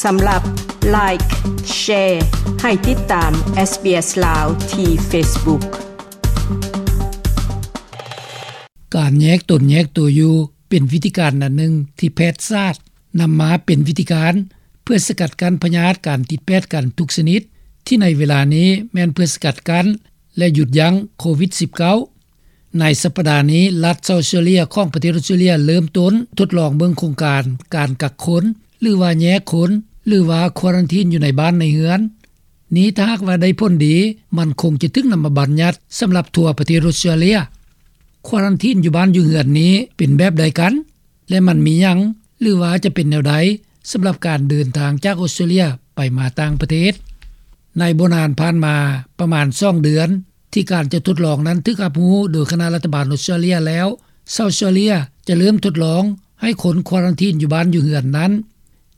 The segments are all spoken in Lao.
ສຳລັບ Like, Share ໃຫ້ຕິດຕາມ SBS ລາວ ທີ່ Facebook. ການແຍກຕົນແຍກໂຕຢູ່ ເປັນວິທີການອັນໜຶ່ງທີ່ແພດສາດນຳມາເປັນວິທີການ ເພື່ອສະກັດກັ້ນພະຍາດການຕິດແປດກັນທຸກຊະນິດ ທີ່ໃນເວລານີ້ແມ່ນເພື່ອສະກັດກັ້ນ ແລະ ຢຸດຢັ້ງໂຄວິດ-19. ໃນສັບປະດານີ້ ລັດເຊົາເຊເລຍຂອງປະເທດອົດສະເຕຣເລຍເລີ່ມຕົ້ນທົດລອງເບິ່ງໂຄງການການກັກຄົນ ຫຼືວ່າແຍກຄົນ ຫຼືວ່າຄວາຣັນທີນຢູ່ໃນບ້ານໃນເຮືອນ. ນີ້ຖ້າຫາກວ່າໄດ້ຜົນດີ ມັນຄົງຈະຖືກນຳມາບັນຍັດສຳລັບທົ່ວປະເທດອົດສະເຕຣເລຍ. ຄວາຣັນທີນຢູ່ບ້ານຢູ່ເຮືອນນີ້ເປັນແບບໃດກັນ ແລະ ມັນມີຫຍັງ ຫຼືວ່າຈະເປັນແນວໃດສຳລັບການເດີນທາງຈາກອົດສະເຕຣເລຍໄປມາຕ່າງປະເທດ? ໃນບໍ່ນານຜ່ານມາປະມານສອງເດືອນ ທີ່ການຈະທົດລອງນັ້ນຖືກຮັບຮູ້ໂດຍຄະນະລັດຖະບານອົດສະເຕຣເລຍແລ້ວ, ເຊົາເຊເລຍຈະເລີ່ມທົດລອງໃຫ້ຄົນຄວາຣັນທີນຢູ່ບ້ານຢູ່ເຮືອນນັ້ນ.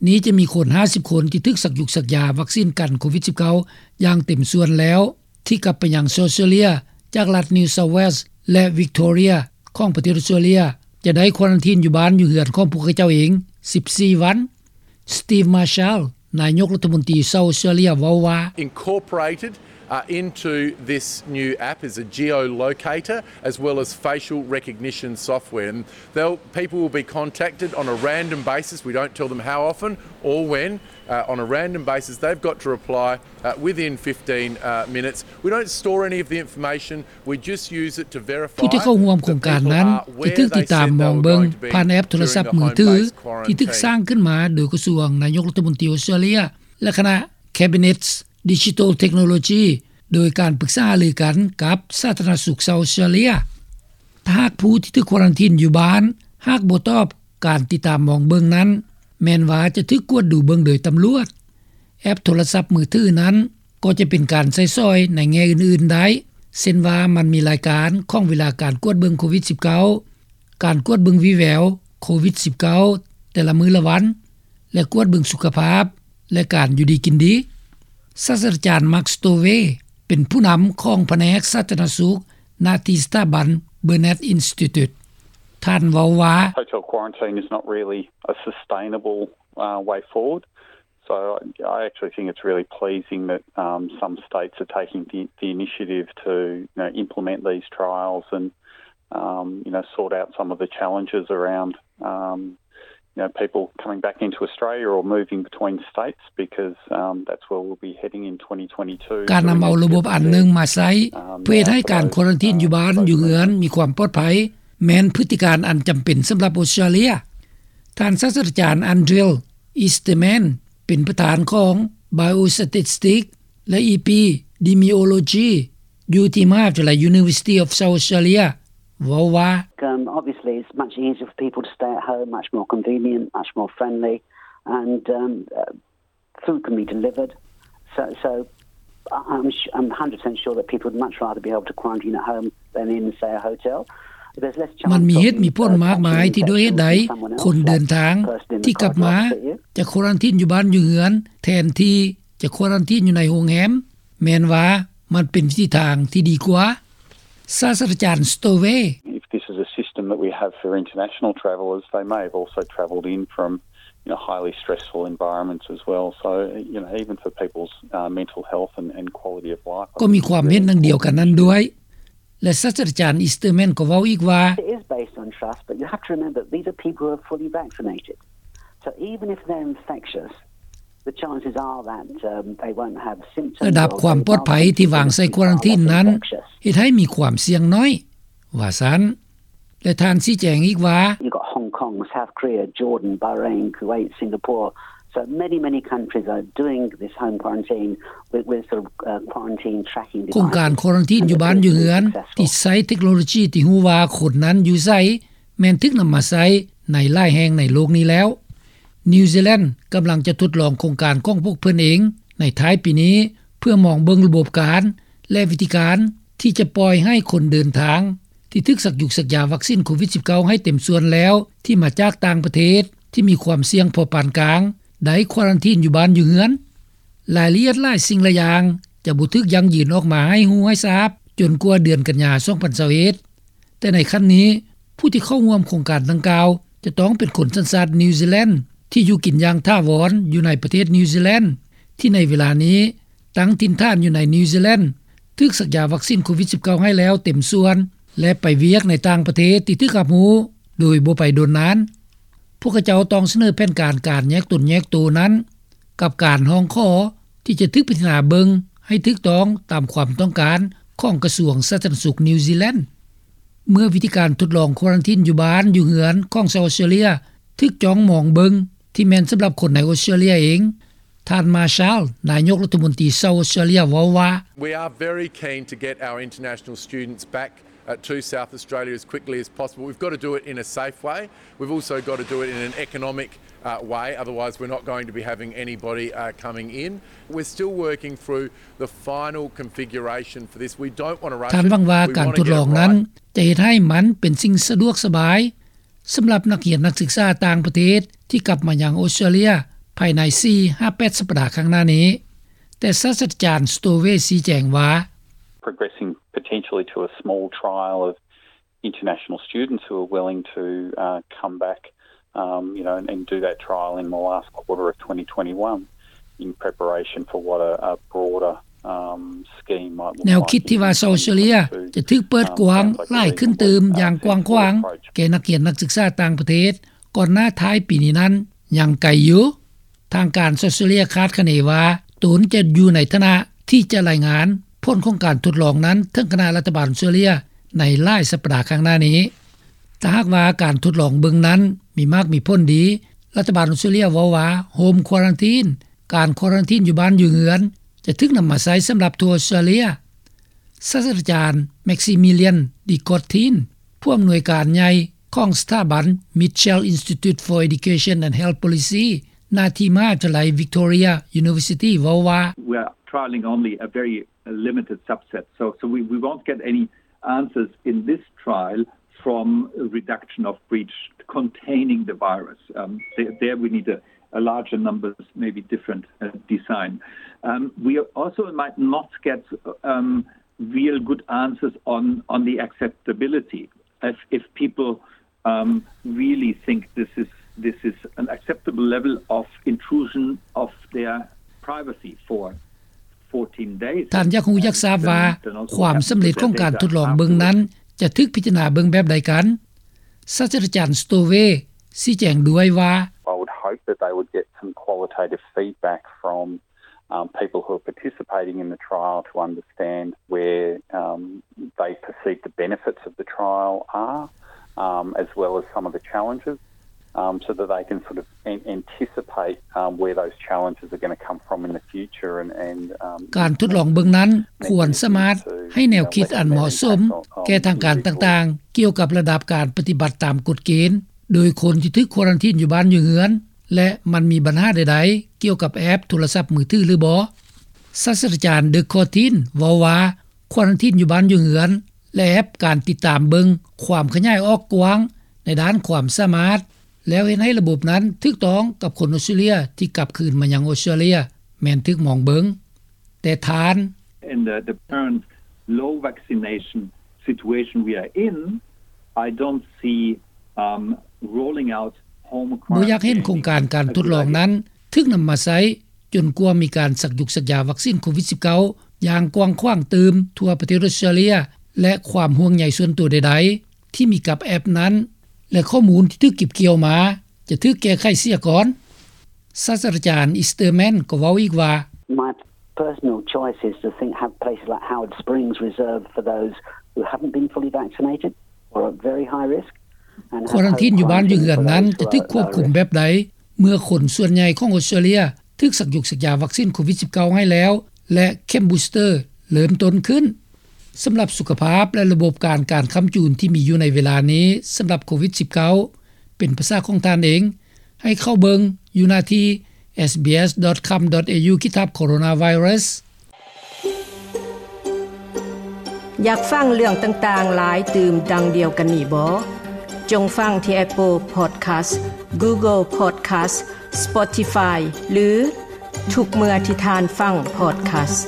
ນີ້ຈະມີຄົນຫ້າສິບຄົນທີ່ຖືກສັກຢຸກສັກຢາວັກຊີນກັນໂຄວິດ-19 ຢ່າງເຕັມສ່ວນແລ້ວ ທີ່ກັບໄປຍັງເຊົາເຊເລຍຈາກລັດ New South Wales ແລະ Victoria ຂອງປະເທດອົດສະເຕຣເລຍ ຈະໄດ້ຄວາຣັນທີນຢູ່ບ້ານຢູ່ເຮືອນຂອງພວກເຂົາເຈົ້າເອງສິບສີ່ວັນ. Steve Marshall ນາຍົກລັດຖະມົນຕີເຊົາເຊເລຍເວົ້າວ່າ Incorporated uh, into this new app is a geolocator as well as facial recognition software. And they'll, people will be contacted on a random basis. We don't tell them how often or when. Uh, on a random basis, they've got to reply uh, within fifteen uh, minutes. We don't store any of the information. We just use it to verify ຜູ້ທີ່ເຂົ້າຮ່ວມໂຄງການນັ້ນຈະຖືກຕິດຕາມມອງເບິ່ງຜ່ານແອັບໂທລະສັບມືຖື ທີ່ຖືກສ້າງຂຶ້ນມາໂດຍກະຊວງນາຍົກລັດຖະມົນຕີອົດສະເຕຣເລຍ ແລະ ຄະນະ Cabinet Digital Technology ໂດຍການປຶກສາຫາລືກັນກັບສາທາລະນະສຸກເຊົາເຊເລຍ. ຖ້າຫາກຜູ້ທີ່ຖືກຄວາຣັນທີນຢູ່ບ້ານ ຫາກບໍ່ຕອບການຕິດຕາມມອງເບິ່ງນັ້ນ ແມ່ນວ່າຈະຖືກກວດດູເບິ່ງໂດຍຕຳຫຼວດ. ແອັບໂທລະສັບມືຖືນັ້ນ ກໍຈະເປັນການໃຊ້ສອຍໃນແງ່ອື່ນໆໄດ້ ເຊັ່ນວ່າມັນມີລາຍການຂອງເວລາການກວດເບິ່ງໂຄວິດ-19, ການກວດເບິ່ງວີແວວໂຄວິດ-19 ແຕ່ລະມື້ລະວັນ ແລະ ກວດເບິ່ງສຸຂະພາບ ແລະ ການຢູ່ດີກິນດີ. ສາດສະດາຈານ Mark Stowe ເປັນຜູ້ນຳຂອງພະແນກສາທາລະນະສຸກ ນະທີ່ສະຖາບັນ Burnet Institute. ທ່ານເວົ້າວ່າ Hotel quarantine is not really a sustainable uh, way forward. So I actually think it's really pleasing that um, some states are taking the, the initiative to you know, implement these trials and um, you know, sort out some of the challenges around um, you know, people coming back into Australia or moving between states because um, that's where we'll be heading in twenty twenty-two. ການນຳເອົາລະບົບອັນໜຶ່ງມາໃຊ້ ເພື່ອເຮັດໃຫ້ການຄວາຣັນທີນຢູ່ບ້ານຢູ່ເຮືອນມີຄວາມປອດໄພ ແມ່ນພຶດຕິການອັນຈຳເປັນສຳລັບອົດສະຕຣາເລຍ. ທ່ານສາດສະດາຈານ Andrew Easterman ເປັນປະທານຂອງ Biostatistics ແລະ Epidemiology ຢູ່ທີ່ມະຫາວິທະຍາໄລ University of South Australia ເວົ້າວ່າ Um, obviously, it's much easier for people to stay at home, much more convenient, much more friendly, and um, uh, food can be delivered. So, so I- I'm, sh- I'm one hundred percent sure that people would much rather be able to quarantine at home than in, say, a hotel. There's less chance ມັນມີເຫດມີຜົນມາກມາຍທີ່ດ້ວຍເຫດໃດຄົນເດີນທາງທີ່ກັບມາຈະຄວາຣັນທີນຢູ່ບ້ານຢູ່ເຮືອນ ແທນທີ່ຈະຄວາຣັນທີນຢູ່ໃນໂຮງແຮມ ແມ່ນວ່າມັນເປັນວິທີທາງທີ່ດີກວ່າ. ສາດສະດາຈານ Stowe. If this is a system that we have for international travellers, they may have also travelled in from you know, highly stressful environments as well. So, you know, even for people's uh, mental health and, and quality of life, ກໍມີຄວາມເຫັນດັ່ງດຽວກັນນັ້ນດ້ວຍ ແລະ ສາດສະດາຈານ Easterman ກໍເວົ້າອີກວ່າ It is based on trust, but you have to remember that these are people who are fully vaccinated. So even if they're infectious, the chances are that um, they won't have symptoms. ລະດັບຄວາມປອດໄພທີ່ວາງໃສ່ຄວາຣັນທີນນັ້ນ ເຮັດໃຫ້ມີຄວາມສ່ຽງໜ້ອຍ ວ່າຊັ້ນ. ແລະ ທ່ານຊີ້ແຈງອີກວ່າ You've got Hong Kong, South Korea, Jordan, Bahrain, Kuwait, Singapore. So many, many countries are doing this home quarantine with, with sort of uh, quarantine tracking devices. ໂຄງການຄວາຣັນທີນຢູ່ບ້ານຢູ່ເຮືອນ ທີ່ໃຊ້ເທັກໂນໂລຈີທີ່ຮູ້ວ່າຄົນນັ້ນຢູ່ໃສ ແມ່ນຖືກນຳມາໃຊ້ໃນຫຼາຍແຫ່ງໃນໂລກນີ້ແລ້ວ. ນິວຊີແລນກຳລັງຈະທົດລອງໂຄງການຂອງພວກເພິ່ນເອງໃນທ້າຍປີນີ້ ເພື່ອມອງເບິ່ງລະບົບການ ແລະ ວິທີການທີ່ຈະປ່ອຍໃຫ້ຄົນເດີນທາງ ທີ່ຖືກສັກຢຸກສັກຢາວັກຊີນໂຄວິດ-19 ໃຫ້ເຕັມສ່ວນແລ້ວ ທີ່ມາຈາກຕ່າງປະເທດທີ່ມີຄວາມສ່ຽງພໍປານກາງ ໄດ້ຄວາຣັນທີນຢູ່ບ້ານຢູ່ເຮືອນ. ລາຍລະອຽດຫຼາຍສິ່ງຫຼາຍຢ່າງຈະບໍ່ຖືກຢັ້ງຢືນອອກມາໃຫ້ຮູ້ໃຫ້ຊາບ ຈົນກວ່າເດືອນກັນຍາ ສອງພັນຊາວເອັດ. ແຕ່ໃນຂັ້ນນີ້ ຜູ້ທີ່ເຂົ້າຮ່ວມໂຄງການດັ່ງກ່າວ ຈະຕ້ອງເປັນຄົນສັນຊາດນິວຊີແລນ ທີ່ຢູ່ກິນຢ່າງຖາວອນຢູ່ໃນປະເທດນິວຊີແລນ ທີ່ໃນເວລານີ້ຕັ້ງຖິ່ນຖານຢູ່ໃນນິວຊີແລນ ຖືກສັກຢາວັກຊີນໂຄວິດ-19 ໃຫ້ແລ້ວເຕັມສ່ວນ ແລະ ໄປວຽກໃນຕ່າງປະເທດທີ່ຖືກຮັບຮູ້ໂດຍບໍ່ໄປດົນນານ. ພວກເຂົາເຈົ້າຕ້ອງສະເໜີແຜນການການແຍກຕົນແຍກໂຕນັ້ນ ກັບການຮ້ອງຂໍທີ່ຈະຖືກພິຈາລະນາເບິ່ງໃຫ້ຖືກຕ້ອງຕາມຄວາມຕ້ອງການຂອງກະຊວງສາທາລະນະສຸກນິວຊີແລນ. ເມື່ອວິທີການທົດລອງຄວາຣັນທີນຢູ່ບ້ານຢູ່ເຮືອນຂອງຊາວອອສເຕຣເລັຽ ຖືກຈ້ອງມອງເບິ່ງທີ່ແມ່ນສຳລັບຄົນໃນອອສເຕຣເລັຽເອງ, ທ່ານ ມາຊາລ ນາຍົກລັດຖະມົນຕີຊາວອອສເຕຣເລັຽ ເວົ້າວ່າ: We are very keen to get our international students back, uh, to South Australia as quickly as possible. We've got to do it in a safe way. We've also got to do it in an economic, uh, way. Otherwise, we're not going to be having anybody, uh, coming in. We're still working through the final configuration for this. We don't want to rush it. ທ່ານຫວັງວ່າການທົດລອງນັ້ນຈະເຮັດໃຫ້ມັນເປັນສິ່ງສະດວກສະບາຍ ສຳລັບນັກຮຽນນັກສຶກສາຕ່າງປະເທດທີ່ກັບມາຍັງອອສເຕຣເລັຽພາຍໃນສີ່ຫາແປດສັບປະດາຂ້າງໜ້ານີ້. ແຕ່ສາດສະດາຈານ ສະໂຕເວ ຊີ້ແຈງວ່າ: Progressing potentially to a small trial of international students who are willing to, uh, come back, um, you know, and, and do that trial in the last quarter of twenty twenty-one in preparation for what a, a broader ແນວຄິດທີ່ວ່າຊາວອອສເຕຣເລັຽຈະຖືກເປີດກວ້າງຫຼາຍຂຶ້ນຕື່ມຢ່າງກວ້າງຂວາງແກ່ນັກຮຽນນັກສຶກສາຕ່າງປະເທດກ່ອນໜ້າທ້າຍປີນີ້ນັ້ນຍັງໄກຢູ່. ທາງການອອສເຕຣເລັຽຄາດຄະເນວ່າຕົນຈະຢູ່ໃນຖານະທີ່ຈະລາຍງານຜົນຂອງການທົດລອງນັ້ນເຖິງຄະນະລັດຖະບານອອສເຕຣເລັຽໃນຫຼາຍສັບປະດາຂ້າງໜ້ານີ້. ຖ້າຫາກວ່າການທົດລອງເບິ່ງນັ້ນມີໝາກມີຜົນດີ, ລັດຖະບານອອສເຕຣເລັຽເວົ້າວ່າ Home Quarantine ການຄວາຣັນທີນຢູ່ບ້ານຢູ່ເຮືອນ ຈະຖືກນຳມາໃຊ້ສຳລັບທົ່ວອອສເຕຣເລັຽ. ສາດສະດາຈານ ແມັກຊີມີລຽນ ດີກອດທີນ ຜູ້ອຳນວຍການໃຫຍ່ຂອງສະຖາບັນ Mitchell Institute for Education and Health Policy ໜ້າທີ່ມະຫາວິທະຍາໄລ Victoria University ເວົ້າວ່າ: We are trialing only a very limited subset, so, so we, we won't get any answers in this trial from a reduction of breach containing the virus. Um, there, there we need a, a larger numbers, maybe different, uh, design. Um, we also might not get, um, real good answers on, on the acceptability. If, if people, um, really think this is, this is an acceptable level of intrusion of their privacy for ທ່ານຢາກຮູ້ຢາກຊາບວ່າ ຄວາມສຳເລັດຂອງການທົດລອງເບິ່ງນັ້ນຈະຖືກພິຈາລະນາເບິ່ງແບບໃດກັນ? ສາດສະດາຈານ ສະໂຕເວ ຊີ້ແຈງດ້ວຍວ່າ: I would hope that they would get some qualitative feedback from, um, people who are participating in the trial to understand where, um, they perceive the benefits of the trial are, um, as well as some of the challenges. Um, so that they can sort of an-, anticipate, um, where those challenges are gonna come from in the future and, and, um, ການທົດລອງເບິ່ງນັ້ນຄວນສາມາດໃຫ້ແນວຄິດອັນເໝາະສົມແກ່ທາງການຕ່າງໆ ກ່ຽວກັບລະດັບການປະຕິບັດຕາມກົດເກນ ໂດຍຄົນທີ່ຖືກຄວາຣັນທີນຢູ່ບ້ານຢູ່ເຮືອນ ແລະ ມັນມີບັນຫາໃດໆ ກ່ຽວກັບແອັບໂທລະສັບມືຖືຫຼືບໍ່. ສາດສະດາຈານ ເດິກ ຄອດທີນ ເວົ້າວ່າ ຄວາຣັນທີນຢູ່ບ້ານຢູ່ເຮືອນ ແລະ ແອັບການຕິດຕາມເບິ່ງຄວາມຂະຫຍາຍອອກກວ້າງໃນດ້ານຄວາມສາມາດ ແລ້ວເຮັດໃຫ້ລະບົບນັ້ນຖືກຕ້ອງກັບຄົນອອສເຕຣເລັຽທີ່ກັບຄືນມາຍັງອອສເຕຣເລັຽ ແມ່ນຖືກມອງເບິ່ງ. ແຕ່ທ່ານ: In the, the current low vaccination situation we are in, I don't see, um, rolling out home quarantine. ບໍ່ຢາກເຫັນໂຄງການການທົດລອງນັ້ນຖືກນຳມາໃຊ້ ຈົນກວ່າມີການສັກຢຸກສັກຢາວັກຊີນໂຄວິດ-19 ຢ່າງກວ້າງຂວາງຕື່ມທົ່ວປະເທດອອສເຕຣເລັຽ ແລະ ຄວາມຫ່ວງໃຍສ່ວນຕົວໃດໆ ທີ່ມີກັບແອັບນັ້ນ ແລະ ຂໍ້ມູນທີ່ຖືກເກັບກ່ຽວມາຈະຖືກແກ້ໄຂເສຍກ່ອນ. ສາດສະດາຈານ ອີສເຕີແມນ ກໍເວົ້າອີກວ່າ: My personal choice is to think have places like Howard Springs reserved for those who haven't been fully vaccinated or at very high risk. ຄວາຣັນທີນຢູ່ບ້ານຢູ່ເຮືອນນັ້ນຈະຖືກຄວບຄຸມແບບໃດ ເມື່ອຄົນສ່ວນໃຫຍ່ຂອງອອສເຕຣເລັຽຖືກສັກຢຸກສັກຢາວັກຊີນໂຄວິດ-19 ໃຫ້ແລ້ວ ແລະ ເຂັມບູສເຕີເລີ່ມຕົ້ນຂຶ້ນ. ສຳລັບສຸຂະພາບ ແລະ ລະບົບການການຄ້ຳຈູນທີ່ມີຢູ່ໃນເວລານີ້ສຳລັບໂຄວິດ-19 ເປັນພາສາຂອງທ່ານເອງ ໃຫ້ເຂົ້າເບິ່ງຢູ່ໜ້າທີ່ SBS.com.au ຂີດທັບ Coronavirus. ຢາກຟັງເລື່ອງຕ່າງໆຫຼາຍຕື່ມດັ່ງດຽວກັນນີ້ບໍ? ຈົ່ງຟັງທີ່ Apple Podcast, Google Podcast, Spotify ຫຼື ທຸກເມື່ອທີ່ທ່ານຟັງ Podcast.